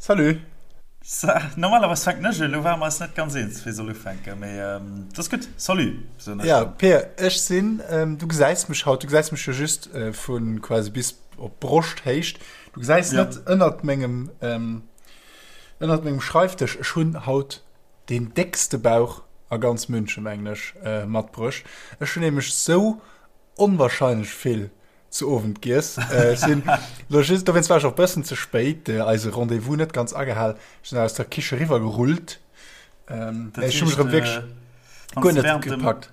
Salut! Normalerweis fänken ech un, elo ware mer eis net ganz eens, wie soll ufänken, mee et ass gutt. Salut, soen ech. Ja, Peer, ech sinn, du gesäis mech haut, du gesäis mech jo just vu quasi bis op Broschthéicht. Du gesäis net ënnert mengem, ënnert mengem Schreifdësch, ech hunn haut deen déckste Bauch a ganz München, mengen ech, matbruecht. Ech hunn nämlech sou onwahrscheinlech vill zu Owend giess. Ech sinn lo just, dowéinst war ech och bëssen ze spéit, eise Rendez-vous net ganz agehal. Ech sinn aus der Kiche riwwer gerullt. Ähm, Dat ech hu mech erëm wierklech guer net gepackt.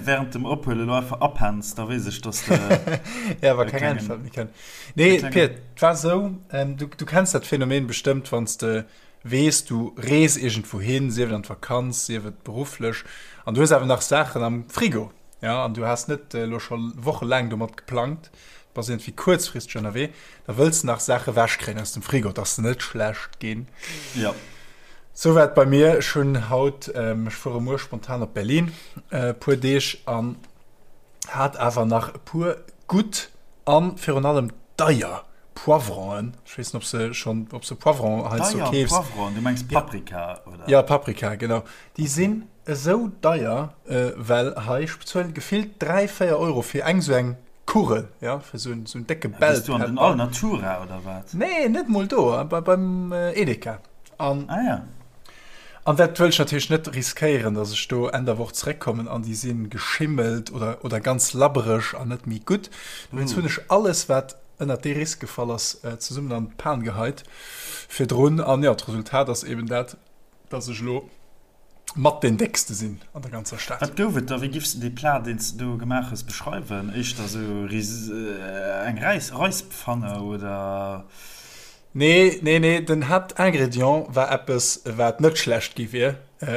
Während dem Ophuelen elo einfach apenns, da weess ech, dass de. Ja, wa keng Äntwert méi kënnt. Nee, Pir, et war esou, ähm, du, du kenns dat Phänomen bestëmmt, wann s de weess, du rees iergendwou hin, sief et an d'Vakanz, sief et berufflech, an du hues awer nach Saachen am Frigo. Ja, an du has net elo scho wochelaang domat geplangt, du bass iergendwéi kuerzfristeg ënnerwee, da wëlls de nach Saache ewechkréien aus dem Frigo, dass se net schlecht ginn. Ja. Sou war et bei mir. Ech hunn haut, ech fuere muer spontan op Berlin e puer Deeg an hat awer nach e puer gutt a virun allem deier Poivronen. Ech weess net, ob se schonn, ob se Poivron heiansdo Deier keefs. Poivronen? Du mengs Paprika, oder? Ja, Paprika, genau. Déi sinn Esou deier, well hei, ech bezuelen gefillt 3, 4 Euro fir eng sou eng Kugel, jo, fir sou en décke Bell Pepper. Gees du an den Alnatura oder wat? Nee, net mol do, beim Edeka. An, ah ja. An dat wëll ech natierlech net riskéieren, dass ech do Enn der Woch zeréckkommen an déi si geschimmelt oder, oder ganz labbereg an net méi gutt. Dowéinst hunn ech alles, wat ënnert dee Risk gefall ass, zesummen an d'Pan geheit virdrun. An jo, d'Resultat ass eben dat, dass ech elo mat deen déckste sinn an der ganzer Stad. Wat gouf et da? Wéi giffs de dee Plat, deen s de do gemaach hues, beschreiwen? Éischter esou eng Räispfanne oder? Nee, nee, nee, den Haaptingrédient war eppes, wat net schlecht gi wier,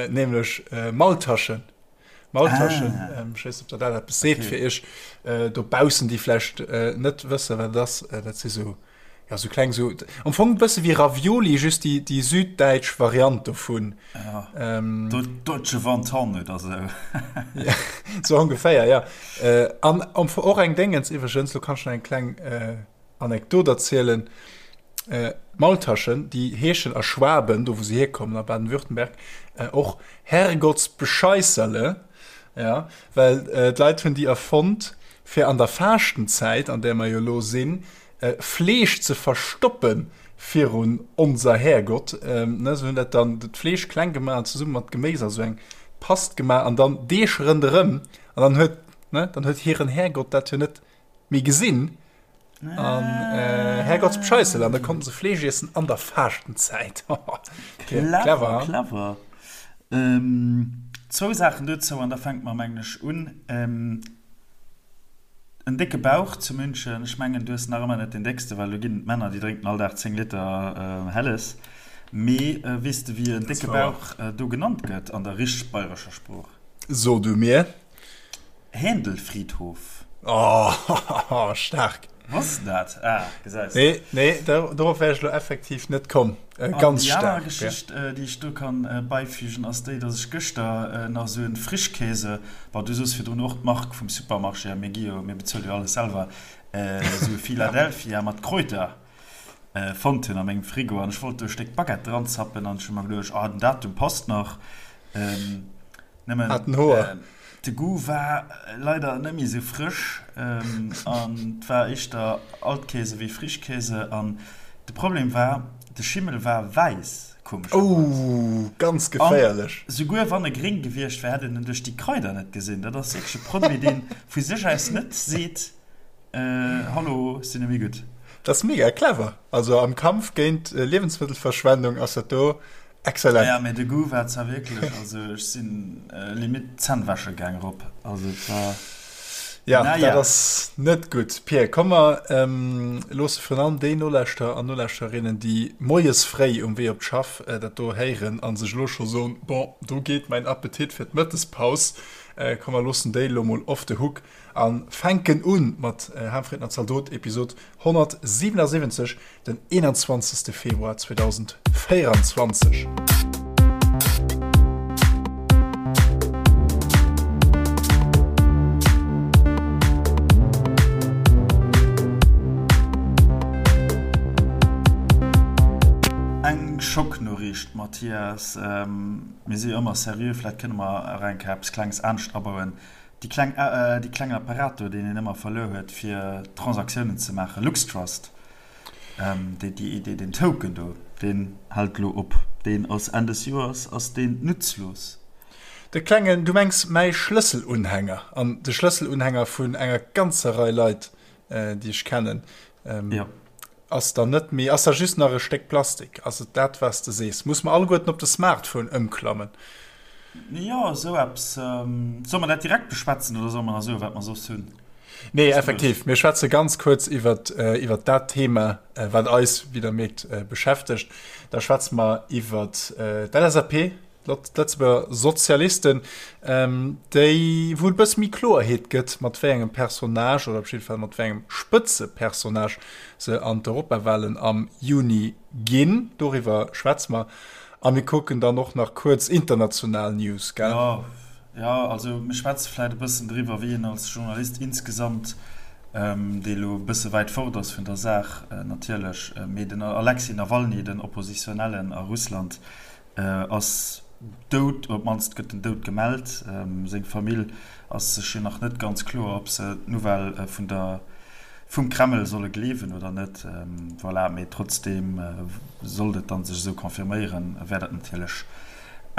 nämlech Maultaschen. Maultaschen, ech weess net, ob der dat eppes seet fir iech dobaussen, déi vläicht net wëssen, wat et ass. Dat si sou Ja, sou kleng, sou am Fong e bësse wéi Ravioli, just déi, déi süddäitsch Variant dovun. Ja, ähm, Deutsche Wonton oder sou. ja, sou ongeféier, ja. Äh, an am Fong och eng Déngens iwwregens, lo kann ech nach eng kleng äh, Anekdot erzielen. Äh, Maultaschen, déi heeschen a Schwaben, do wou se hierkommen, a Baden-Württemberg, äh, och Herrgottsbescheisserle, ja, well äh, d'Leit hunn déi erfonnt, fir an der Faaschtenzäit, an där mer jo lo sinn, Fleesch ze verstoppen virun onser Härgott. Ne, se hunn dat dann d'Fleesch kleng gemaach an zesumme mat Geméis a sou eng Past gemaach an dann Deeg rënderëm an dann huet, ne, dann huet hiren Härgott dat jo net méi gesinn an Härgottsbescheissel an da konnten se Fleesch iessen an der Faaschtenzäit. Clever, clever. Zwou Saachen dozou an da fänke mer, mengen ech, un. En décke Bauch zu München, ech mengen du hues nach ëmmer net deen déckste, well do ginn et Männer déi drénken all Dag 10 Liter Helles. Mee weess de wéi en décke Bauch do genannt gëtt an der richteg bayrescher Sprooch? So du mir. Händelfriedhof. Oh, staark! Wosst de dat? Ah, gesäis de. Nee, nee, dorop wär ech elo effektiv net komm. Ganz staark. An déi aner Geschicht, déi ech do kann beifügen, ass déi, dass ech gëschter nach esou en Frischkäse, bon, du soos virdrun och d'Mark vum Supermarché, a mir gi jo, mir bezuele jo alles selwer, esou e Philadelphia mat Kräuter fonnt hunn a mengem Frigo. An ech wollt do e Stéck Baguette dranzappen an ech hu mer geduecht, ah, den Datum passt nach. Nëmmen Hat en Hoer. De Goût war leider net méi sou frësch an et war éischter Altkäse wéi Frischkäse an de Problem war, de Schimmel war wäiss, komescherweis. Ouh, ganz geféierlech. An souguer wann e gréng gewiescht wär, hätt een en duerch déi Kraider net gesinn. Dat ass wierklech e Produit, dee vu sech aus net seet, Hallo, ech sinn net méi gutt. Dat ass mega clever. Also am Kampf géint Liewensmëttelverschwendung ass dat do Excellent. Ja, mee de Goût war zwar wierklech, also ech sinn limite d'Zänn wäsche gaang rop, also et war, Ja, dat naja. ass net gutt. Pir, komm mer loosse virun allem déi Nolauschterer an Nolauschtererinnen, déi moies fréi um Wee op d'Schaff dat do héieren a sech elo scho soen, Bon, do geet mäin Appetit fir d'Mëttespaus. Komm mer loossen déi elo mol off the hook a fänken u mat Harmfrieden a Zaldot, Episod 177. Den 21. Februar 2024. Eng. kleng Schocknoriicht, Mathias. Mir si jo ëmmer seriö, vläicht kënne mer nach eng Kéier eppes Klenges anescht abauen. Déi kleng, dee klengen Apparat do, deen een ëmmer verluer huet, fir Transaktiounen ze maachen, LuxTrust, déi, déi, déi, deen Token do, deen hält elo op. Deen ass Enn des Joers ass deen nutzlos. De klengen, du mengs mäi Schlësselunhänger an de Schlësselunhänger vun enger ganzer Rei Leit, déi ech kennen. Jo. Ass dann net méi, ass da just nach e Stéck Plastik? Ass et dat, wat s de sees? Muss mer alleguerten op de Smartphone ëmklammen? Jo, esou eppes. Solle mer dat direkt beschwätzen oder solle mer nach soen, wat mer soss hunn? Nee, effektiv, mir schwätze ganz kuerz iwwer iwwer dat Thema, wat eis, wéi Der mierkt, beschäftegt. Da schwätze mer iwwer d'LSAP, D'Lëtzebuerger Sozialisten, déi, wou et e bësse méi Kloerheet gëtt, mat wéi engem Personnage oder op jidde Fall mat wéi engem Spëtzepersonnage se an d'Europawalen am Juni ginn. Doriwwer schwätze mer. A mir kucken dann och nach kuerz international News, gell? Jo, jo, also mir schwätze vläicht e bëssen driwwer, wéi een als Journalist insgesamt, dee elo e bësse wäit fort ass vun der Saach natierlech, mee den Alexei Nawalny, den Oppositionellen a Russland, Ass dout, op d'mannst gëtt den Doud gemellt. Seng Famill ass sech jo nach net ganz kloer, ob se d'Nouvelle vun der vum Kreml solle gleewen oder net. Voilà, mee trotzdeem, sollt et dann sech esou confirméieren, wär dat natierlech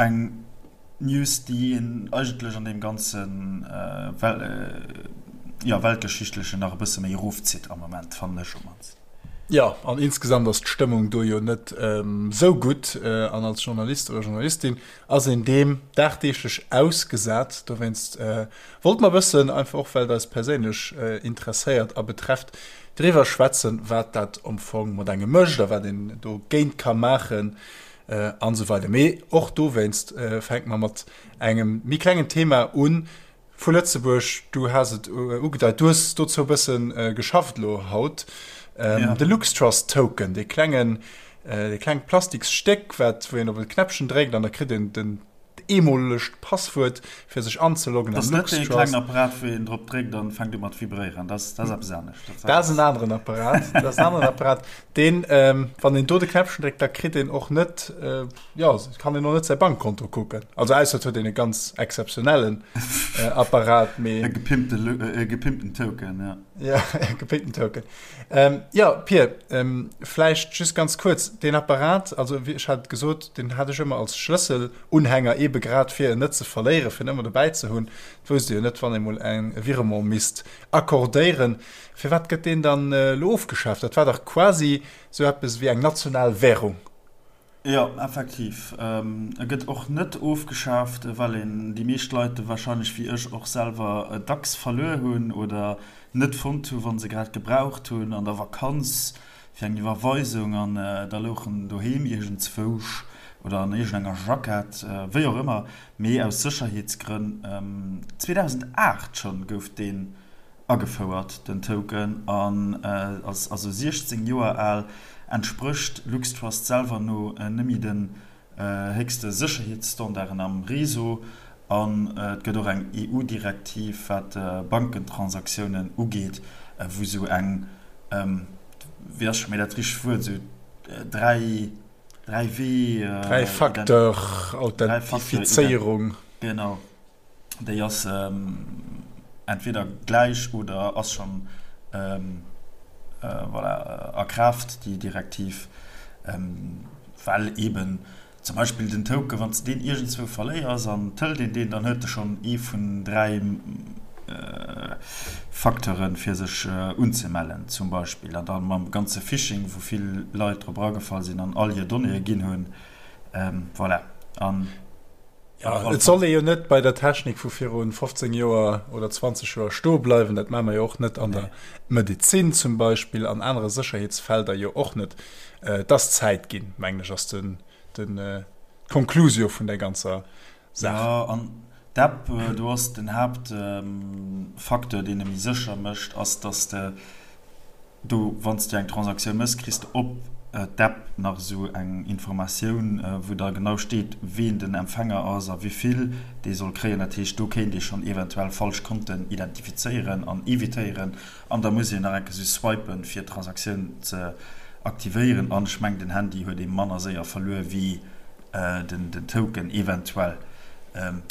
eng News, déi een eigentlech an deem ganze jo weltgeschichtlechen nach e bësse méi erofzitt am Moment, fannen ech op d'mannst. Jo, an insgesamt ass d'Stëmmung do jo net esou gutt. An als Journalist oder Journalistin ass een deem dagdeeglech ausgesat. Dowéinst wollte mer e bëssen, einfach och well et eis perséinlech interesséiert a betrefft, driwwer schwätzen, wat dat am Fong mat engem mécht a wat een dogéint ka maachen an esou weider. Mee och dowéinst fänke mer mat engem méi klengen Thema un, Vu Lëtzebuerg, du has et ugedeit, du hues dozou e bësse geschafft elo haut, de LuxTrust Token, dee klengen, dee klengt Plastiksstéck, wat, wou een op e Knäppchen dréckt an da kritt een den eemolegt Passwuert, fir sech anzeloggen am LuxTrust. Dat ass net dee klengen Apparat, wou een drop dréckt an fänkt u mat vibréieren, dat ass eppes anescht. Dat ass en aneren Apparat, dat ass en aneren Apparat, deen, wann een do de Knäppchen dréckt, da kritt een och net, Jo, et kann een och net säi Bankkonto kucken. Also ausser et huet een e ganz exzeptionellen Apparat, mee. E gepimpte, e gepimpten Token, ja. Ja, e gepimpten Token. Jo, Pir, vläicht just ganz kuerz, deen Apparat, also wéi ech hat et gesot, deen hat ech ëmmer als Schlësselunhänger, eebe grad fir en net ze verléieren, fir en ëmmer dobäi ze hunn. Et wousst ee jo net, wann ee mol eng e Virement misst accordéieren. Firwat gëtt deen dann elo ofgeschaaft? Dat war dach quasi sou eppes wéi eng national Währung. Jo, effektiv. E gëtt och net ofgeschaaft, well een déi meescht Leit e warscheinlech wéi ech och selwer dacks verluer hunn oder net fonnt hu wa se grad gebraucht hunn an der Vakanz fir eng Iwwerweisung an da louch en doheem iergendzwousch oder an iergendenger Jackett, wéi och ëmmer. Mee aus Sécherheetsgrënn, 2008 schonn gouf deen Agefouert, den Token, an ass also 16 Joer al, entsprécht LuxTrust selwer no nëmme den héchste Sécherheetsstandarden am Réseau. An et gëtt och eng EU-Direktiv, wat Bankentransaktiounen ugeet, wou sou eng, wéi ass scho méi dat richtegt Wuert, sou 3, 3 Wee, Dräi-Facteur-Authentifizéierung. Genau. Déi ass entweder gläich oder ass schonn voilà, a Kraaft, déi Direktiv, well eeben zum Beispill den Token, wann s de deen iergendzwou verléiers an et hëlt een deen, dann huet e schonn ee vun 3 Facteuren, fir sech unzemellen zum Beispill. An da mam ganze Phishing, wou vill Leit drop eragefall sinn an all hir Donnéeë ginn hunn, voilà. An. Ja, et soll ee jo net bei der Technik vu virun 15 Joer oder 20 Joer stoe bleiwen. Dat maache mer jo och net an der Medezin zum Beispill, an anere Sécherheetsfelder jo och net. Et ass Zäit ginn, mengen ech, ass den, den, d'Konklusio vun där ganzer Saach. Jo, an d'App, do ass den Haaptfacteur, deen e méi sécher mécht, ass, dass de Do, wann s du eng Transaktioun méchs, kriss de op d'App nach esou eng Informatioun, wou da genau steet, ween den Empfänger ass a wivill dee soll kréien. Dat heescht, do kéint ee schonn eventuell falsch Konten identifizéieren an evitéieren. An da muss een nach eng Kéier esou swipen, fir d'Transaktioun ze. aktivéieren. An ech mengen, den Handy huet ee manner séier verluer wéi den Token eventuell.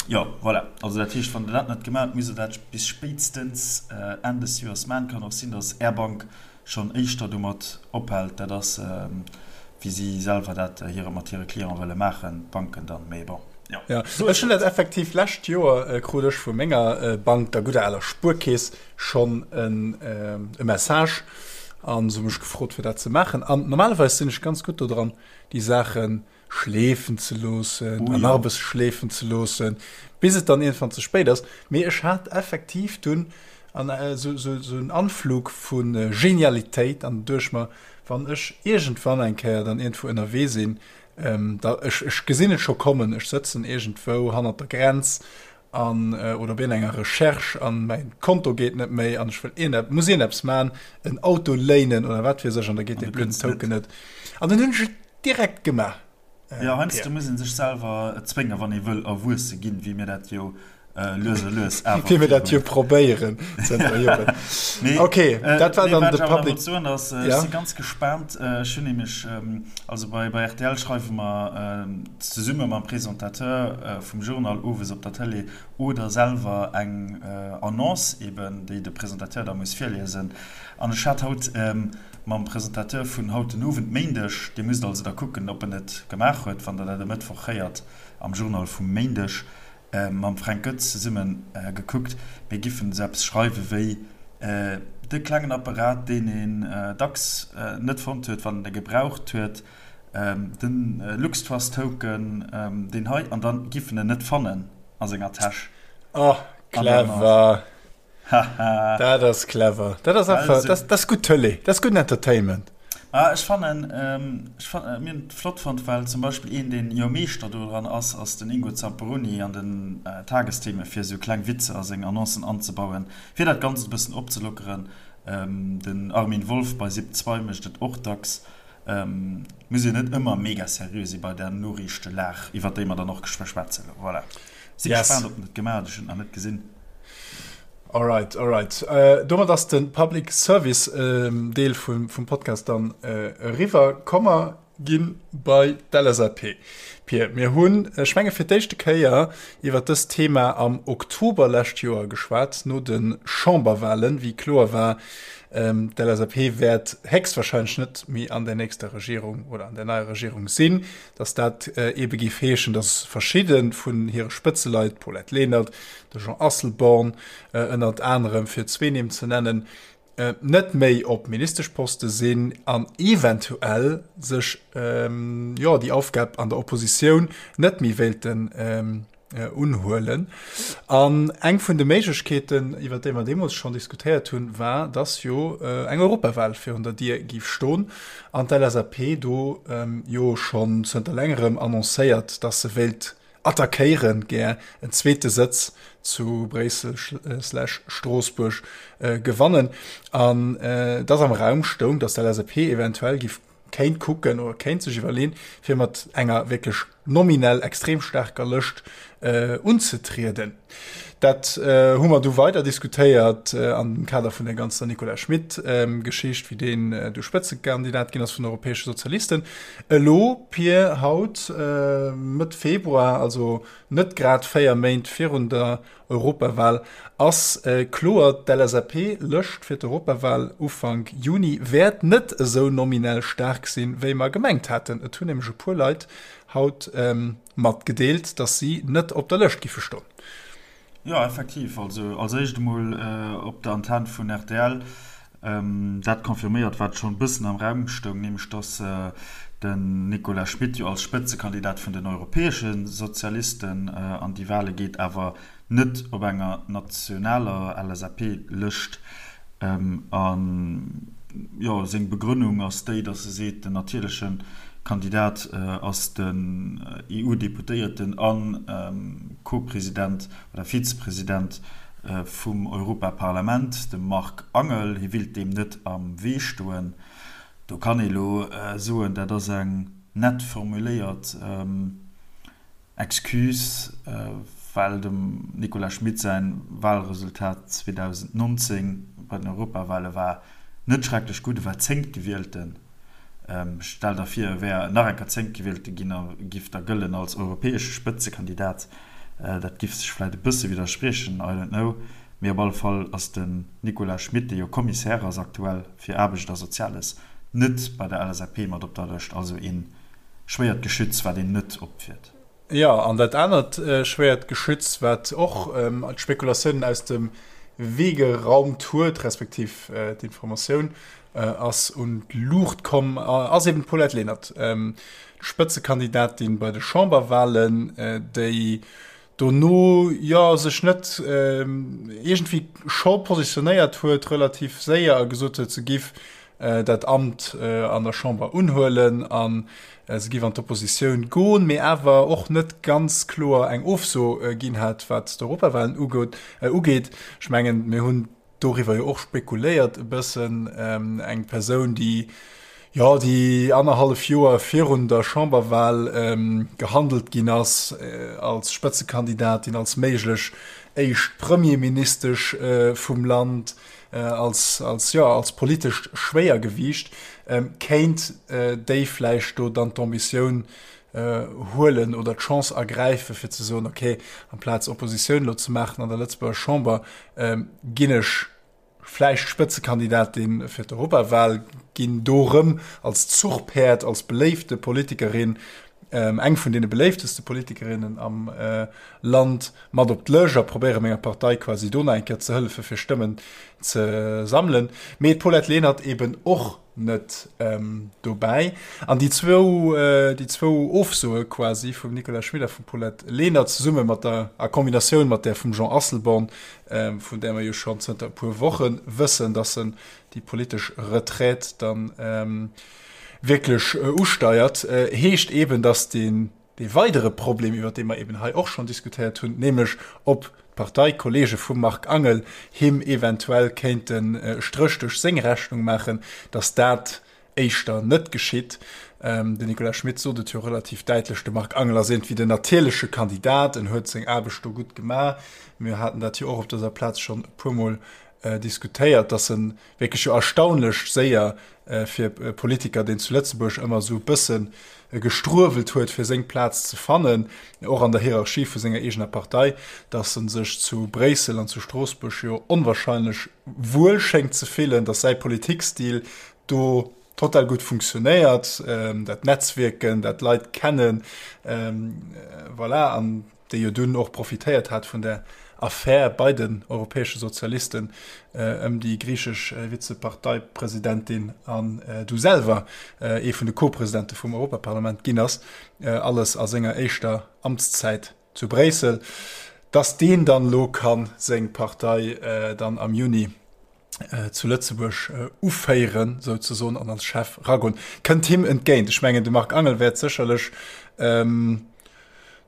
Jo, voilà. Also dat heescht, wann Der dat net gemaach hutt, musst Der dat bis spéitstens Enn des Joers maachen. Kann och sinn, dass Är Bank schonn éischter domat ophält. Dat ass, wéi si selwer dat hire mat hire Cliente wëlle maachen, d'Banken dann. Mee bon, jo. Jo, ech hunn dat effektiv lescht Joer krut ech vu menger Bank, der gudder aler Spuerkeess, schonn e Message an se hu mech gefrot, fir dat ze maachen. An normalerweis sinn ech ganz gutt dodran, déi Saachen schleefen ze loossen an nach e bësse schleefen ze loossen, bis et dann iergendwann ze spéit ass. Mee ech hat effektiv dunn an esou esou en Anflug vu Genialitéit an duecht mer, wann ech iergendwann eng Kéier dann iergendwou ënnerwee sinn, da ech ech gesinn et scho kommen, ech sëtzen iergendwou hannert der Grenz an oder op iergendenger Recherche an mäin Konto geet net méi an ech wëll iergend muss iergendeppes man, en Auto léinen oder wat weess ech an da geet dee blöden Token net an dann hunn ech et Direkt gemaach. Jo, heiansdo muss een sech selwer zwéngen, wann ee wëll erwuesse ginn, wéi mir dat jo lues a lues awer Wéi mir dat jo probéieren zënter Joren. Mee, Ok, dat war dann de Public. Wat ech awer nach wollt soen ass, ech si ganz gespaant, ech hunn nämlech, also bei rtl schreiwe mer zesumme mam Presentateur vum Journal owes op der Tëlee oder selwer eng Annonce eben, déi de Presentateur da muss virliesen. An ech hat haut Mam Presentateur vun haut den Owend, Méindeg, Dir musst also da kucken, ob en et gemaach huet, wann Der dat e Mëttwoch héiert am Journal vum Méindeg, mam Fränk Goetz zesumme gekuckt. Mir giffen esou eppes schreiwe wéi, De klengen Apparat, deen een dacks net fonnt huet, wann en e gebraucht huet, de LuxTrust-Token, deen hei, an da giff en en net fannen a senger Täsch. Oh, clever! Haha. Dat ass clever. Dat ass einfach, dat, dat ass gutt Tëlee, dat ass gudden Entertainment. Ah, ech fannen, ech fan, mir hunn et flott fonnt, well zum Beispill een, deen jo Meeschter dodran ass, ass den Ingo Zamperoni an den Tagestheme fir esou kleng Witzer a seng Annoncen anzebauen, fir dat Ganzt e bëssen opzelockeren. Den Armin Wolf bei Sip 2 mécht et och dacks. Muss een net ëmmer mega seriö si bei der Noriichtelag, iwwer déi mer dann och geschwë schwätzen. Voilà. Si yes. gespaant, ob en et gemaach huet, ech hunn et nach net gesinn. Alright, alright. Äh, domat ass de Public Service äh, Deel vum, vum Podcast dann äh, eriwwer. Komm mer ginn bei d'LSAP. Pir, mir hunn, ech menge fir d'éischte Kéier iwwer dëst Thema am Oktober lescht Joer geschwat, no de Chamberwahlen, wéi kloer war, ähm, d'LSAP wäert héchstwahrscheinlech net méi an der nächster Regierung oder an der neier Regierung sinn. dass dat eebe géif heeschen, dass verschidde vun hire Spëtzeleit, d'Paulette Lenert, de Jean Asselborn ënnert anerem, fir zwee Nimm ze nennen, net méi op Ministeschposte sinn an eventuell sech, jo, déi Aufgab an der Oppositioun net méi wéilten unhuelen. An eng vun de Méiglechkeeten, iwwer déi mer deemools schonn diskutéiert hunn, war, dass jo eng Europawal virun der Dier géif stoen an d'LSAP do jo schonn zënter längerem annoncéiert, dass se wéilt attackéieren, gär en zweete Sëtz zu Bréissel slash Stroossbuerg gewannen an dass am Raum stoung, dass d'LSAP eventuell géif kéint kucken oder kéint sech iwwerleen, fir mat enger wierklech nominell extrem staarker Lëscht unzetrieden. Dat hu mer du weider diskutéiert an dem Kader vun der ganzer Nicolas Schmit-Geschicht, wéi deen du Spëtzekandidat ginn ass vun den Europäesche Sozialisten. Elo, Pir, haut, Mëtt Februar, also net grad 4 Méint virun der Europawal ass kloer, D'LSAP-Lëscht fir d'Europawal Ufank Juni wäert net esou nominell staark sinn, wéi mer gemengt haten. Et hunn nämlech e puer Leit haut matgedeelt, datt si net op der Lëscht giffe stoen. Jo, effektiv. Also als éischt emol op der Antenn vun rtl Dat confirméiert, wat schonn e bëssen am Raum stoung, nämlech datt den Nicolas Schmit jo als Spëtzekandidat vun den europäesche Sozialisten an déi Wale geet, awer net op enger nationaler LSAP-Lëscht. A jo, seng Begrënnung ass déi, datt e seet, den natierleche Kandidat ass den EU-Deputéierten a Co-President oder Vizepresident vum Europaparlament, de Marc Angel. Hie willt deem net am Wee stoen. Do kann ee lo soen, dat ass eng nett formuléiert Excuse, well dem Nicolas Schmit säin Wahlresultat 2019 bei den Europawale war net schrecklech gutt, e war Zéngtgewielten. Stell der vir, e wär nach eng Kéier zéngtgewielte ginn a giff da gëllen als europäesche Spëtzekandidat. Dat giff sech vläit e bësse widderspriechen, I don't know. Mee op alle Fall ass den Nicolas Schmit, dee jo Commissaire ass aktuell fir Aarbecht a Soziales, net bei der LSAP mat op der Lëscht. Also ee schwéiert Geschütz, wat een net opfiert. Jo, an dat anert schwéiert Geschütz, wat och d'Spekulatiounen aus dem Wee geraumt huet, respektiv d'Informatioun ass un d'Luucht komm, ass eben d'Paulette Lenert, d'Spëtzekandidatin bei de Chamberwahlen, déi dono jo sech net iergendwéi scho positionéiert huet, relativ séier a gesot huet, se giff dat Amt an der Chamber unhuelen a se giff an d'Oppositioun goen, mee awer och net ganz kloer eng Ofso ginn hat, wat d'Europawahlen ugeet. Ech mengen, mir hunn doriwwer jo och spekuléiert e bëssen, eng Persoun, déi, jo, déi annerhallef Joer virun der Chamberwahl gehandelt ginn ass als Spëtzekandidatin, als méiglech éischt Premierministesch vum Land, als, als, jo, als politescht Schwéiergewiicht, kéint déi vläicht do dann d'Ambitioun huelen oder d'Chance ergräifen, fir ze soen, okay, amplaz Oppositioun elo ze maachen an der Lëtzebuerger Chamber, ginn ech vläicht Spëtzekandidatin fir d'Europawahl, ginn do erëm als Zuchpäerd, als beléifte Politikerin, eng vun deene beléifteste Politikerinnen am Land, mat op d'Lëscht a probéiere menger Partei quasi do nach eng Kéier ze hëllefen, fir Stëmmen ze sammelen. Mee d'Paulette Lenert eben och net dobäi. An déi zwou, déi zwou Ofsoe quasi vum Nicolas Schmit a vum Paulette Lenert zesumme mat der, a Kombinatioun mat där vum Jean Asselborn, vun där mer jo schonn zënter e puer Woche wëssen, datt en déi politesch Retraite dann wierklech usteiert, heescht eeben, datt deen, Dee weidere Problem, iwwert dee mer eben hei och schonn diskutéiert hunn, nämlech ob d'Parteikollege vum Marc Angel him eventuell kéinten e Stréch duerch seng Rechnung maachen, datt dat éischter net geschitt. Den Nicolas Schmit sot et jo relativ däitlech, de Marc Angel ass iergendwéi den natierleche Kandidat, en huet seng Aarbecht do gutt gemaach. Mir haten dat jo och op dëser Plaz schonn e puermol diskutéiert, datt en wierklech jo erstaunlech séier fir e Politiker, deen zu Lëtzebuerg ëmmer esou e bësse gestruewelt huet, fir seng Plaz ze fannen, och an der Hierarchie vu senger eegener Partei, datt e sech zu Bréissel an zu Stroossbuerg jo onwahrscheinlech wuel schéngt ze fillen, datt säi Politikstil do total gutt funktionéiert, dat Netzwierken, dat Leit kennen, voilà. An déi jo dunn och profitéiert hat vun der Affär bei den europäesche Sozialisten ëm déi griichesch Vizeparteipresidentin an du selwer ee vun de Co-Presidente vum Europaparlament ginn ass, alles a senger éischter Amtszäit zu Bréissel, datt deen dann elo ka seng Partei dann am Juni zu Lëtzebuerg uféieren souzesoen an als Chef ragoen, kënnt him entgéint. Ech mengen de Marc Angel wäert sécherlech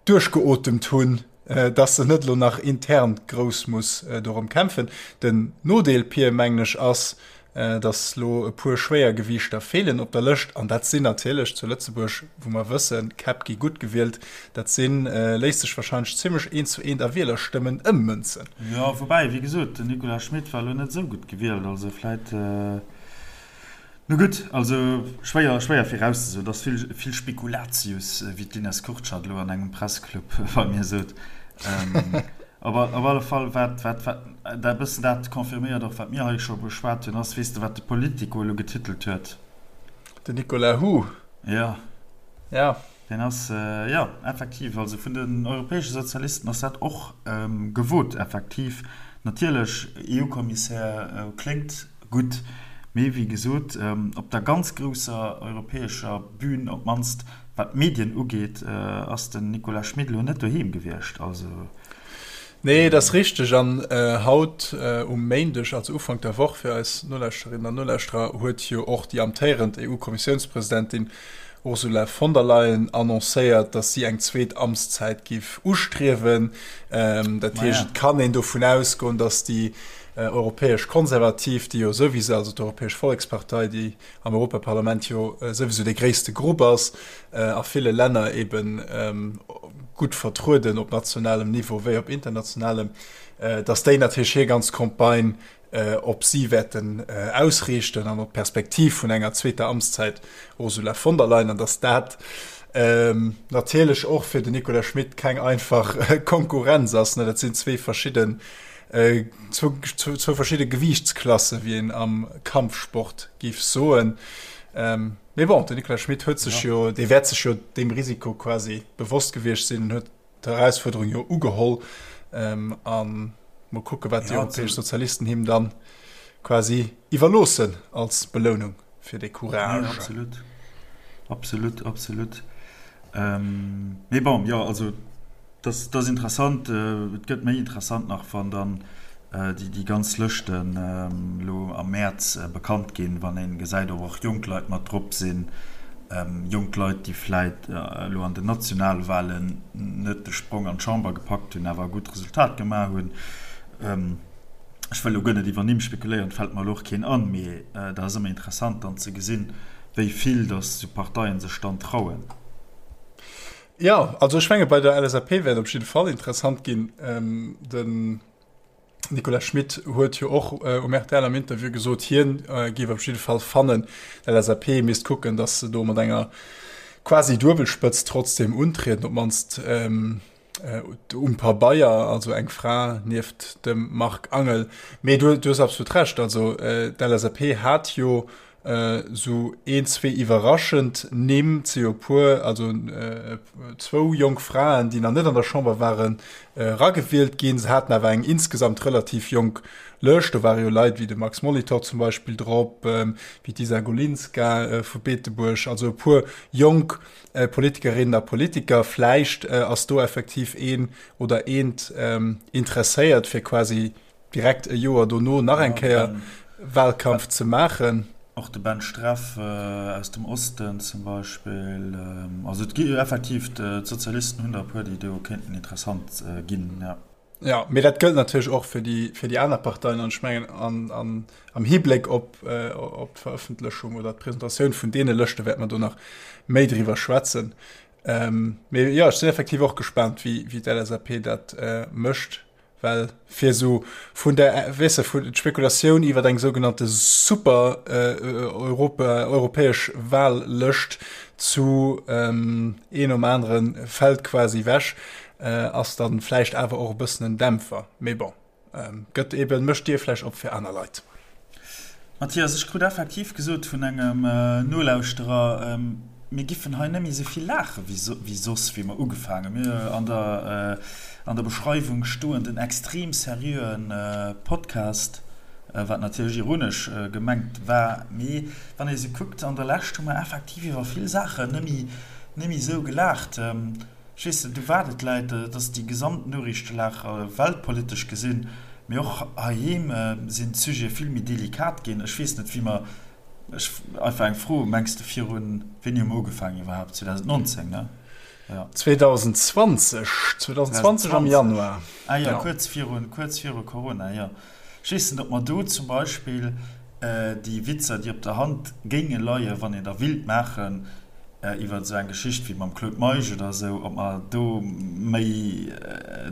duerchgeotemt hunn, dass en net elo nach intern grouss muss dorëm kämpfen. Den Nodeel, Pir, mengen ech, ass, dass elo e puer Schwéiergewiichter feelen op der Lëscht, an dat sinn natierlech zu Lëtzebuerg, wou mer wëssen, d'Käpp gi gutt gewielt, dat sinn, léisst sech wahrscheinlech zimmlech eent zu eent a Wielerstëmmen ëmmënzen. Jo, woubäi, wéi gesot, den Nicolas Schmit war elo net esou gutt gewielt, also vläit. Nu gutt, also schwéier, schwéier virauszesoen. Et ass vill, vill Spekulatius, wéi d'Ines Kurtschat elo an engem Pressclub bei mir sot. Op op alle Fall, wat, wat, wat dat e bëssen dat confirméiert och, wat mir hei scho beschwat hunn, ass, weess de, wat de Politico elo getitelt huet? Den Nicolas Hu. Jo. Ja. Deen ass, jo, effektiv, also vun den europäesche Sozialisten ass dat och gewot, effektiv. Natierlech, EU-Kommissär kléngt gutt, mee wéi gesot, op der ganz grousser europäescher Bühn, op d'mannst wat d'Medien ugeet, ass den Nicolas Schmit elo net doheem gewiescht. Also. Nee, et ass richteg. An haut um Méindeg, also Ufank der Woch fir eis Nolauschterinnen an Nolauschterer, huet jo och déi amtéierend EU-Kommissiounspresidentin Ursula von der Leyen annoncéiert, datt si eng zweet Amtszäit giff ustriewen. Dat heescht, et kann een dovun ausgoen, datt déi europäesch Konservativ, déi jo souwisou, also d'Europäesch Vollekspartei, déi am Europaparlament jo souwisou dee gréisste Grupp ass, a ville Länner ebe gutt vertrueden op nationalem Niveau wéi op internationalem, datt déi natierlech hir ganz Campagne. op si wäerten ausriichten an op d'Perspektiv vun enger zweeter Amtszäit Ursula von der Leyen, an datt dat natierlech och fir den Nicolas Schmit keng einfach Konkurrenz ass. Dat sinn zwee verschidden, zwou verschidde Gewiichtsklasse, wéi een am Kampfsport géif soen. Mee bon, den Nicolas Schmit huet sech jo, dee wäert sech jo deem Risiko quasi bewosst gewiescht sinn an huet d'Erausfuerderung jo ugeholl. A mol kucke wat déi europäesch Sozialisten him dann quasi iwwerloossen als Belounung fir dee Courage. Jo, absolut. Absolut, absolut. Mee bon, jo, also dat ass interessant. Et gëtt méi interessant nach, wann dann déi ganz Lëschten elo am Mäerz bekannt ginn, wann ee gesäit, ob och jonk Leit mat drop sinn, jonk Leit, déi vläit elo an den Nationalwahlen net de Sprong an d'Chamber gepackt hunn, awer e gutt Resultat gemaach hunn. Ech wëll elo guer net iwwer Nimm spekuléieren, et fält mer elo och keen an, mee dat ass ëmmer interessant dann ze gesinn, wéi vill datt esou Parteien sech dann trauen. Jo, also ech menge bei der LSAP wäert op jidde Fall interessant ginn. Den Nicolas Schmit huet jo och um rtl am Interview gesot, hien géif op jidde Fall fannen, d'LSAP misst kucken, datt se do mat enger quasi Duebelspëtzt trotzdem untrieden, op d'mannst um Pabeier, also eng Fra nieft dem Marc Angel. Mee du hues absolut Recht, also d'LSAP hat jo Sou een, zwee iwwerraschend Nimm, et si jo e puer, also zwou jonk Fraen, déi nach net an der Chamber waren, eragewielt ginn. Se haten awer eng insgesamt relativ jonk Lëscht. Do ware jo Leit wéi de Max Molitor zum Beispill drop, wéi d'Isa Golinska vu Beetebuerg, also e puer jonk Politikerinnen a Politiker. Vläicht ass do effektiv een oder eent interesséiert, fir quasi direkt e Joer dono nach eng Kéier Wahlkampf ze maachen. Och de Ben Streff aus dem Osten zum Beispill. Also et gi effektiv, d'Sozialisten hunn der e puer, déi do kéinten interessant ginn, jo. Jo, mee dat gëllt natierlech och fir déi, fir déi aner Parteien. An ech mengen, an, an, am Hibléck op, op d'Verëffentlechung oder d'Presentatioun vun deene Lëschte wäerte mer do nach méi driwwer schwätzen. Mee jo, ech sinn effektiv och gespaant, wéi, wéi d'LSAP dat mécht. Well fir esou vun der, weess de, vun d'Spekulatioun iwwer eng sougenannte super Europa, europäesch Wahllëscht zu een nom anere fält quasi ewech, ass dann vläicht awer och e bëssen en Dämpfer. Mee bon, gëtt eben, mécht d'Dier vläicht op fir aner Leit. Mathias, ech krut effektiv gesot vun engem Nolauschterer, mir giffen hei net méi esou vill laache wéi soss, wéi mer ugefaangen. Mir an der an der Beschreiwung stoen den extrem seriöen Podcast, wat natierlech ironesch gemengt war. Mee wann ee sou kuckt, an der Lescht hu mer effektiv iwwer vill Saachen net méi net méi esou gelaacht. Ech weess net, u wat et läit, et ass déi gesamt Noriichtelag weltpolitesch gesinn, mee och heiheem sinn d'Sujete vill méi delikat ginn. Ech weess net, wéi mer, ech, einfach eng Fro, Mengs de virun, wéini hu mer ugefaangen iwwerhaapt? 2019, ne? Jo. 2020, 2020 am Januar. Ah jo, kuerz virun, kuerz viru Corona, jo. Ech weess net, ob mer do zum Beispill déi Witzer, déi op der Hand géinge leien, wann een der willt maachen, iwwer esou eng Geschicht wéi mam Claude Meisch oder esou, ob mer do méi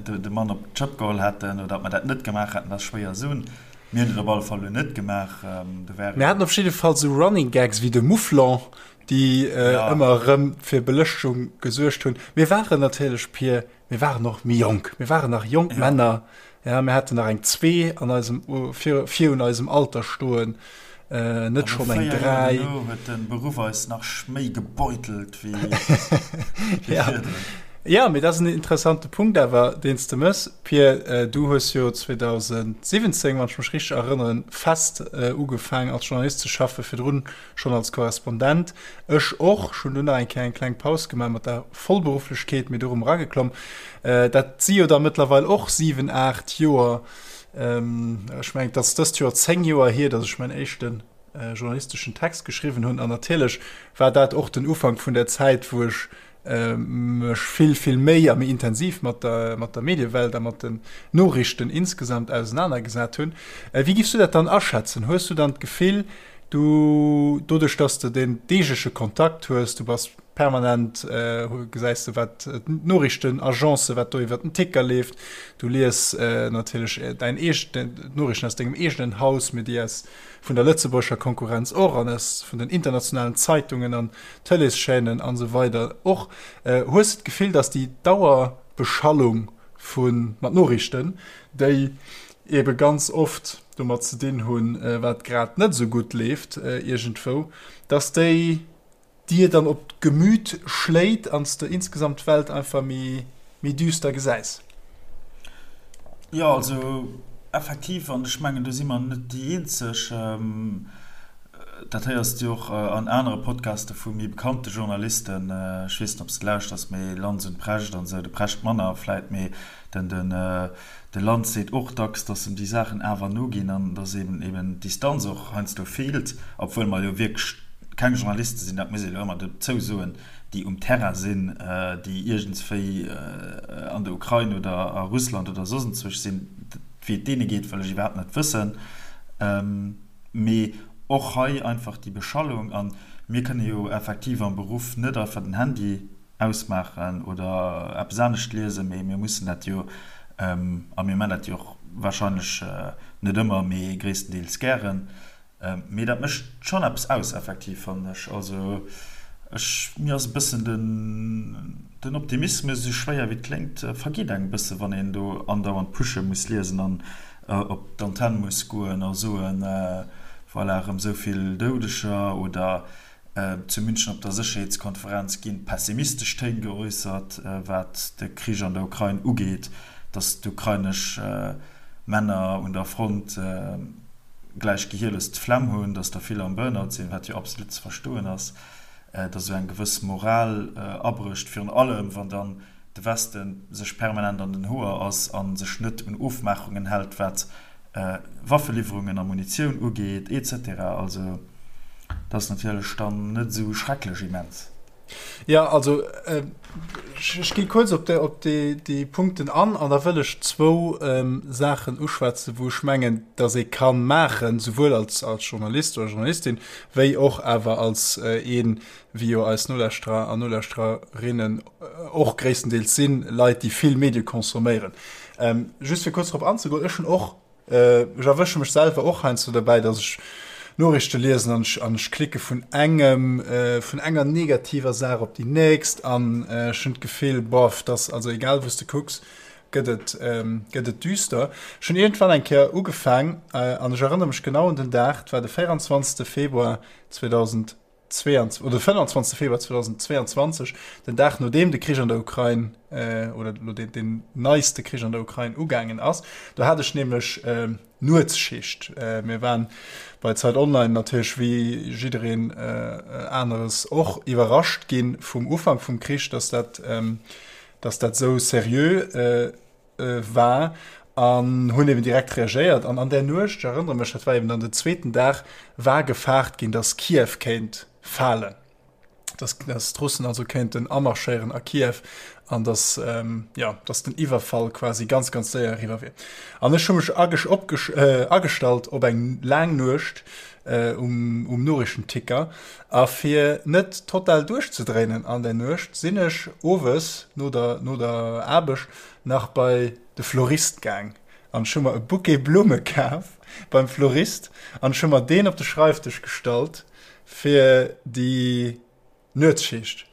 de Mann op d'Schëpp geholl hätten oder ob mer dat net gemaach hätten, dat ass schwéier soen. Mir hunn et op alle Fall elo net gemaach. Do wäre. Mir haten op jidde Fall esou Running Gags wéi de Mouflon, déi ëmmer erëm fir Belëschtung gesuergt hunn. Mir waren natierlech, Pir, mir waren och méi jonk. Mir waren nach jonk Männer. Ja, mir haten nach eng zwee an eisem, vir, virun eisem Alter stoen, net schonn eng dräi. An no 4 Joer duerno huet de Beruff eis nach méi gebeutelt wéi virdrun. Ja, mee dat ass en interessante Punkt awer, deen s de mëss, Pir. Du hues jo 2017, wann ech mech richteg erënneren, fest ugefaangen als Journalist ze schaffen, virdrun schonn als Korrespondent. Ech och. Ech hunn dunn nach eng Kéier eng kleng Paus gemaach mat der Vollberufflechkeet, mee du erëm erageklomm. Dat si jo da mëttlerweil och 7, 8 Joer. Ech mengen, et ass dëst Joer 10 Joer hier, datt ech mäin éischte journalisteschen Text geschriwwen hunn. An natierlech war dat och den Ufank vun der Zäit, wou ech mech vill, vill méi a méi intensiv mat der, mat der Mediewelt a mat den Noriichten insgesamt ausenanergesat hunn. Wéi giffs du dat dann aschätzen? Hues du dann d'Gefill, du, doduerch dass de den deegleche Kontakt hues, du bass. Permanent gesäis de wat d'Noriichtenagencen, wat do iwwer den Ticker leeft. Du lies natierlech däin eegenen, d'Noriichten aus dengem eegenen Haus, mee déi aus vun der lëtzebuergescher Konkurrenz och an aus vun den internationalen Zeitungen an Tëleeschaînen an esou weider och. Hues de d'Gefill, datt déi Dauerbeschallung vu mat Noriichten, déi eebe ganz oft domat ze dinn hunn, wat grad net esou gutt leeft iergendwou, datt déi dir dann op d'Gemüt schléit an s de insgesamt d'Welt einfach méi méi düster gesäis. Jo, also effektiv, an ech mengen do si mer net déi eenzeg, dat héiers de jo och an anere Podcaste vu méi bekannte Journalisten, ech weess net ob s de lauschters, mee Lanz und Precht an esou, de Precht manner vläit, mee den den De Lanz seet och dacks, datt em déi Saachen awer noginn an datt eben eben d'Distanz och heiansdo feelt, obwuel mer jo wierklech keng Journaliste sinn, dat muss ee lo ëmmer dozou soen, déi um Terrain sinn, déi iergendswéi an der Ukrain oder a Russland oder soss enzwousch sinn. Wéi et deene geet, wëll ech iwwerhaapt net wëssen. Mee och hei einfach déi Beschallung. A mir kënne jo effektiv am Beruff net einfach den Handy ausmaachen oder eppes anescht liesen, mee mir mussen dat jo, a mir man dat jo och wahrscheinlech net ëmmer, mee gréisstendeels gären. Mee dat mécht schonn eppes aus effektiv, fannen ech. Also ech, mir ass e bëssen den, den Optimismus, esou schwéier wéi et kléngt, vergeet engem e bësse wann een do andauernd Pushe muss liesen an op d'Antenn muss goen a soen, voilà, erëm esou vill Doudeger oder Zu München op der Sécherheetskonferenz ginn pessimistesch Téin geäussert, wat de Krich an der Ukrain ugeet, datt d'ukrainesch Männer un der Front gläich gehierlos d'Flemm hunn, datt der vill am Burnout sinn, wat jo absolut ze verstoen ass, datt esou eng gewëss Moral abrécht, virun allem wann dann de Weste sech permanent an den Hoer ass a sech net un Ofmaachungen hält, wat Waffeliwwerungen a Munitioun ugeet, etc. Also dat ass natierlech dann net esou schrecklech immens. Jo, also ech gi kuerz op déi Punkten an an da wëll ech zwou Saachen uschwätzen, wou ech mengen, datt ee ka maachen, souwuel als Journalist oder Journalistin, wéi och awer als een, wéi jo eis Nolauschterer an Nolauschtererinnen och gréisstendeels sinn, Leit, déi vill Medie consomméieren. Just fir kuerz drop anzegoen, ech hunn och, ech erwësche mech selwer och heiansdo derbäi, datt ech Noriichte liesen an ech, an ech klicke vun engem, vun enger negativer Saach op déi nächst an ech hunn d'Gefill, boff, dass, also egal wou s de kucks, gëtt et, gëtt et düster. Ech hunn iergendwann eng Kéier ugefaang, an ech erënnere mech genau un den Dag, et war de 24. Februar 2000, 22, oder 25. Februar 2022, den Dag nodeem de Krich an der Ukrain äh, oder lo den, den neiste Krich an der Ukrain ugaangen ass. Do hat ech nämlech äh, Nuetsschicht. Äh, mir waren bei Zeit Online natierlech wéi jiddereen äh, aneres och iwwerrascht ginn vum Ufank vum Krich, dass dat, ähm, dass dat sou seriö äh, war an hunn eben direkt reagéiert. An an där Nuecht, ech erënnere mech, dat war eben dann den zweeten Dag, war gefaart ginn, datt Kiew kéint falen, datt datt d'Russen also kéinten amarschéieren a Kiew an datt, jo, datt den Iwwerfall quasi ganz, ganz séier eriwwer wier. An ech hu mech agestallt op eng laang Nuecht um, um Noriichtenticker. A fir net total duerchzedréinen an der Nuecht, sinn ech owes no der, no der Aarbecht nach bei de Florist gaang an ech hu mer e Bouquet Blumme kaf beim Florist an ech hu mer deen op de Schreifdësch gestallt fir déi Nuetsschicht.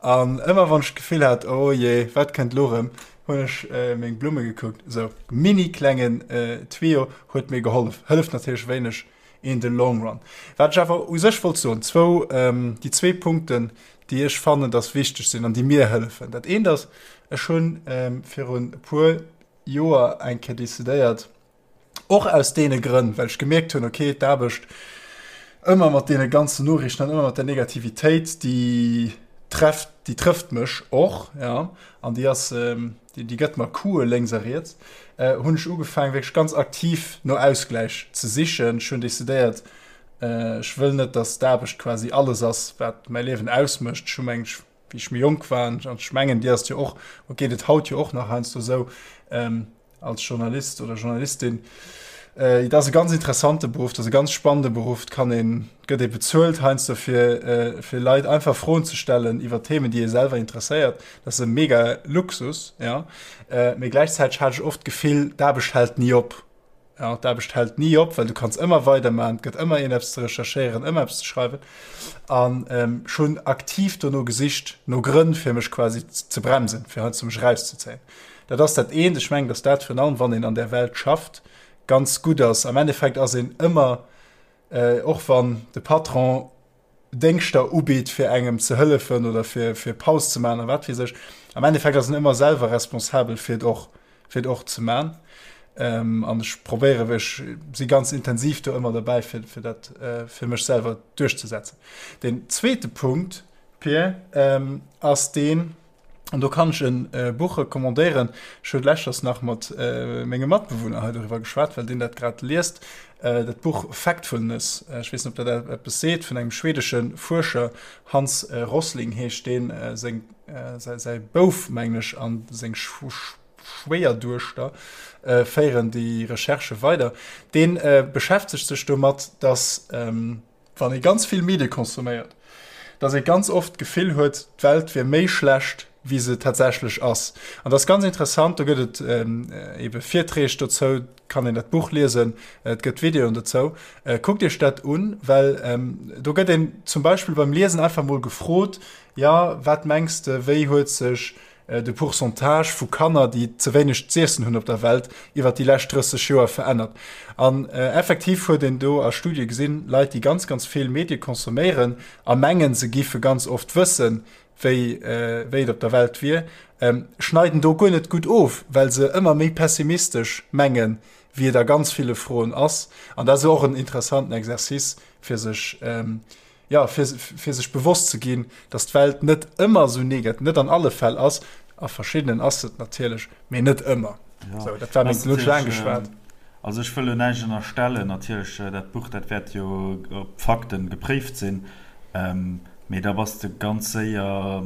An ëmmer wann ech d'Gefill hat, oh jee, wat kënnt lo rëm, hunn ech meng Blumme gekuckt. Esou mini klengen Tuyau huet mir gehollef. Hëlleft natierlech wéineg in the long run. Wat ech awer u sech wollt soen, zwou, déi zwee Punkten, déi ech fannen, dass wichteg sinn an déi mir hëllefen. Dat eent ass, ech hu virun e puer Joer eng Kéier decidéiert, och aus deene Grënn, well ech gemierkt hunn, okay, d'Aarbecht ëmmer mat deene ganzen Noriichten an ëmmer mat der Negativitéit, déi trefft, déi trëfft mech och, ja, an déi ass, déi, déi gëtt mer Couë lénks a riets, hunn ech ugefaangen, wierklech ganz aktiv no Ausgläich ze sichen. Ech hunn decidéiert, ech wëll net, dass d'Aarbecht quasi alles ass, wat mäi Liewen ausmécht. Ech hu meng, wéi ech méi jonk war, an ech mengen, dir ass et jo och, geet et haut jo och nach heiansdo esou, als Journalist oder Journalistin. Et ass e ganz interessante Beruff, et ass e ganz spannende Beruff, et kann een, et gëtt ee bezuelt heiansdo fir, fir Leit einfach Froen ze stellen iwwer Themen, déi ee selwer interesséiert. Dat ass e mega Luxus, jo. Mee gläichzäiteg hat ech oft d'Gefill, d'Aarbecht hält ni op. Jo, d'Aarbecht hält ni op, well du kanns ëmmer weidermachen, et gëtt ëmmer een eppes ze recherchéieren, ëmmer eppes ze schreiwen. An ech hunn aktiv dono gesicht, no Grënn, fir mech quasi ze bremsen, fir heiansdo mech erauszezéien. Dat ass dat eent. Ech mengen, datt dat virun allem, wann een an där Welt schafft, ganz gutt ass. Am Endeffekt ass een ëmmer, och wann de Patron Déngschter ubitt, fir engem ze hëllefen oder fir, fir Paus ze maachen a wat weess ech, am Endeffekt ass een ëmmer selwer responsabel, fir et och, fir et och ze maachen. An ech probéieren, ech si ganz intensiv do ëmmer derbäi, fir, fir dat fir mech selwer duerchzesetzen. Deen zweete Punkt, Pir, ass deen, An do kann ech e Buch recommandéieren. Ech hu leschters nach mat mengem Matbewunner hei doriwwer geschwat, well deen dat grad liest, dat Buch Factfulness. Ech weess net, ob dat eppes seet, vun engem schwedesche Fuerscher, Hans Rosling heescht deen, seng, säi Bouf, mengen ech, a seng Schwéierduechter féieren déi Recherchë weider. Dee beschäftegt sech domat, datt, wann ee ganz vill Medie consomméiert, dass ee ganz oft d'Gefill huet, d'Welt wier méi schlecht, wéi se tatsächlech ass. An dat ass ganz interessant, do gëtt et ebe Virträg dozou, kann een dat Buch liesen, et gëtt Videoen dozou. Kuckt Iech dat un, well do gëtt een zum Beispill beim Liesen einfach mol gefrot, Jo, wat mengs de, wéi huet sech de Pourcentage vu Kanner, déi ze wéineg z'iessen hunn op der Welt, iwwer déi lescht 30 Joer verännert. An effektiv huet een do a Studie gesinn, Leit, déi ganz, ganz vill Medie consomméieren a mengen, se giffe ganz oft wëssen, wéi, wéi et op der Welt wier, schneiden do guer net gutt of, well se ëmmer méi pessimistesch mengen, wéi et a ganz ville Froen ass. An dat ass och en interessanten Exercice, fir sech, jo, fir, fir sech bewosst ze ginn, dass d'Welt net ëmmer esou negat, net an alle Fäll ass, a verschiddenen ass se et natierlech, mee net ëmmer. Ja, Sou, dat war meng, ass elo hunn ech laang natierlech, geschwat. also ech wëll elo näischt ënnerstellen, natierlech, dat Buch, dat wäert jo op Fakten gepréift sinn, mee da bass de ganz séier,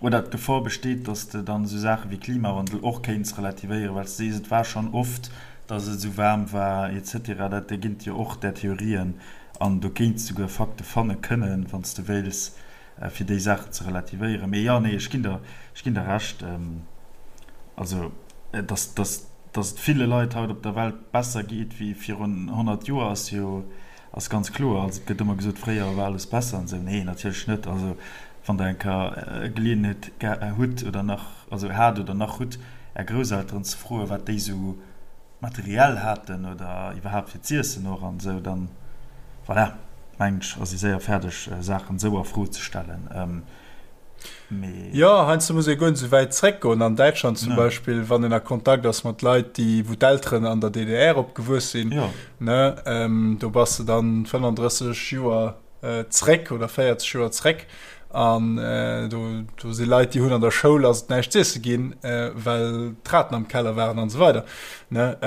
oder d'Gefor besteet, dass de dann esou Saache wéi Klimawandel och kéints relativéieren, well s de sees, et war schonn oft, dass et esou waarm war et cetera. Dat erginn jo och där Theorien an do kéints souguer Fakte fanne kënnen, wann s de wéils, fir déi Saachen ze relativéieren. Mee jo, nee, ech ginn der, ech ginn der Recht, also dass, dass, dass et ville Leit haut op der Welt besser geet wéi virun 100 Joer, ass jo, Ass ganz kloer. Also et gëtt ëmmer gesot, fréier war alles besser an esou. Nee, natierlech net. Also wann Der eng Kéier Geleeënheet hutt oder nach, also hat oder nach hutt, Är Grousselteren ze froen, wat déi esou materiell haten oder iwwerhaapt fir z'iessen och an esou, dann, voilà, mengen ech, ass ee séier fäerdeg, Saachen esou a Fro ze stellen. Mee. Jo, heiansdo muss ee guer net esou wäit zréckgoen. An Däitschland zum Beispill, wann een a Kontakt ass mat Leit, déi, wou d'Elteren an der DDR opgewuess sinn, ne, do bass de dann 35 Joer zréck oder 40 Joer zréck. An do, do si Leit, déi hunn an der Schoul ass et näischt z'iesse ginn, well d'Raten am Keller waren an esou weider, ne.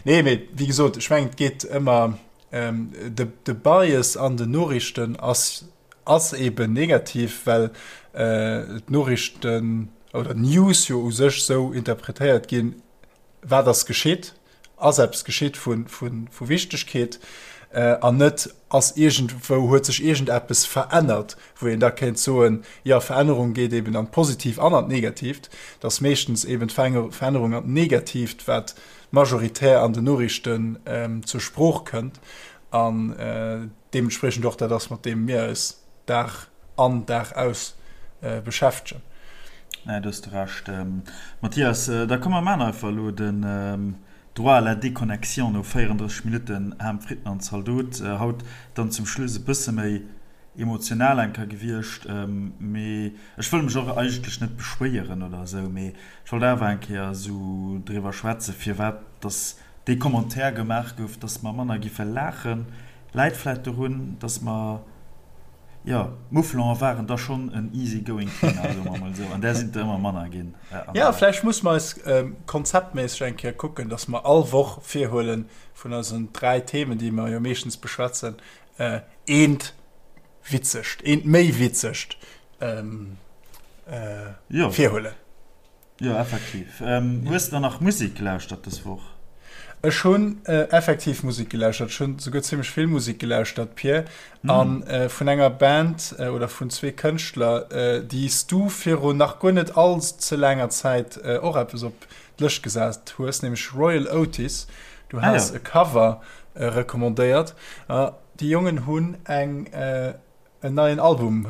Nee, mee wéi gesot, ech mengen, et geet ëmmer, de, de Bias an den Noriichten ass, Ass eben negativ, well d'Noriichten oder d'News jo u sech sou interpretéiert ginn, wat ass geschitt, ass eppes geschitt vu Wichtegkeet an net ass iergendwou, huet sech iergendeppes verännert, wou een da kéint soen, jo Verännerung geet eben an d'Positiivt an an d'Negatiivt. Et ass meeschtens eben d'Verännerung an d'Negatiivt, wat majoritär an den Noriichten zur Sprooch kënnt an deementspriechend och dat ass, mat deem mir eis Dag an Dag aus beschäftegen. Nee, do hues de Recht, Mathias. Da komm mer maachen einfach elo den Droit à la déconnexion no 34 Minutten Ham, Fritten an Zaldot. Haut dann zum Schluss e bësse méi emotional eng Kéier gewiescht, mee ech wëll mech och eigentlech net beschwéieren oder esou, mee ech wollt awer eng Kéier esou driwwer schwätzen, firwat dass dee Commentaire gemaach gouf, dass mer manner giffe laachen, läit vläit dorun, dass mer, jo, d'Mouflon'er waren da schonn en easy going Thema, soe mer emol esou, an där sinn der ëmmer manner ginn. Jo, vläicht musse mer eis konzeptméisseg eng Kéier kucken, dass mer all Woch virhuelen, vun eisen 3 Themen, déi mer jo meeschtens beschwätzen, eent witzegt, eent méi witzegt virhuelen. Jo, effektiv. Hues de dann nach Musek gelauschtert dës Woch? Ech hunn effektiv Musek gelauschtert. Ech hunn souguer zimmlech vill Musek gelauschtert, Pir. A vun enger Band oder vun zwee Kënschtler, déi s du virun nach guer net all ze laanger Zäit och eppes op d'Lëscht gesat hues, nämlech Royal Otis. Du has e Cover recommandéiert. Déi Jongen hunn eng en neien Album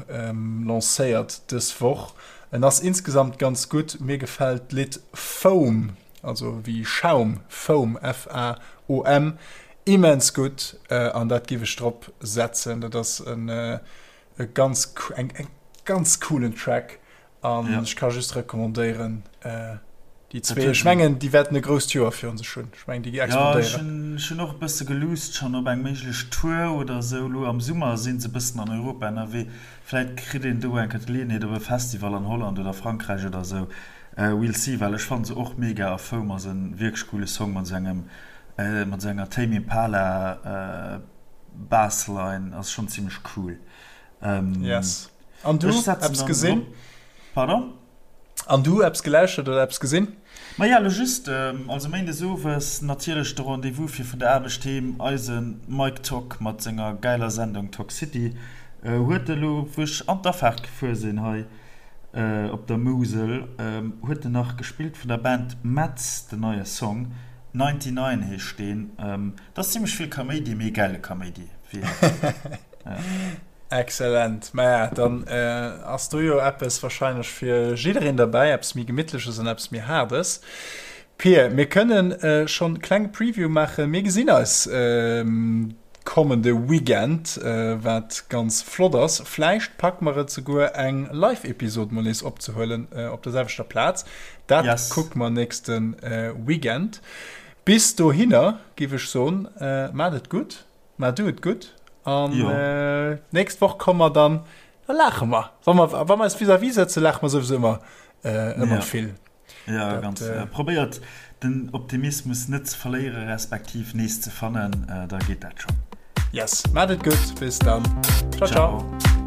lancéiert dës Woch. En ass insgesamt ganz gutt. Mir gefält d'Lidd Foam, also wéi Schaum, Foam, F-A-O-M, immens gutt an dat giff ech drop setzen. Dat ass en e ganz eng ganz coolen Track An ech ka just recommandéieren, déi zwee. Ech mengen, déi wäerten e grousst Joer virun sech hunn. Ech mengen, déi explodéieren. Jo, ech hunn och e bësse geluusst schonn op eng méiglech Tour oder esou. Elo am Summer si se e bëssen an Europa ënnerwee. Vläit kritt een do eng Kéier d'Geleeënheet op e Festival an Holland oder Frankräich oder esou. We'll see, well ech fanne se och mega a Foam ass e wierklech coole Song mat esou engem, mat esou enger Tame Impala Bassline. Ass schonn zimmlech cool. Yes. An du, eppes gesinn? Pardon? An du, eppes gelauschtert oder eppes gesinn? Maja, lo just, also méindes owes natierlech de Rendez-vous fir vun der Aarbecht heem, eise Mike Tock mat senger gäiler Sendung Tock City huet elo, wou ech an d'Afaart gefuer sinn hei op der Musel, huet en nach gespillt vun der Band Metz, den neie Song, 99 heescht deen. Dat ass zimmlech vill Kaméidi, mee gäile Kaméidi, wéi een seet. Excellent. Maja, dann ass do jo eppes wahrscheinlech fir jiddereen derbäi, eppes méi Gemittleches an eppes méi Haardes. Pir, mir kënnen schonn e klenge Preview maachen. Mir gesinn eis kommende Weekend, wat ganz flott ass. Vläicht packe mer et souguer eng Live-Episod mol nees opzehuelen op der selwechter Plaz. Dat kucke mer nächste Weekend. Bis dohinner giff ech soen, maacht et gutt. Mä du et gutt an d'nächst Woch komme mer dann, da laache mer. Wa mer, wa mer eis vis-à-vis sëtzen, laache mer souwisou ëmmer, ëmmer vill. Jo, ganz. Probéiert den Optimismus net ze verléiere respektiv nees ze fannen, da geet dat schonn. Yes, maat et gutt, bis dann. Ciao, ciao.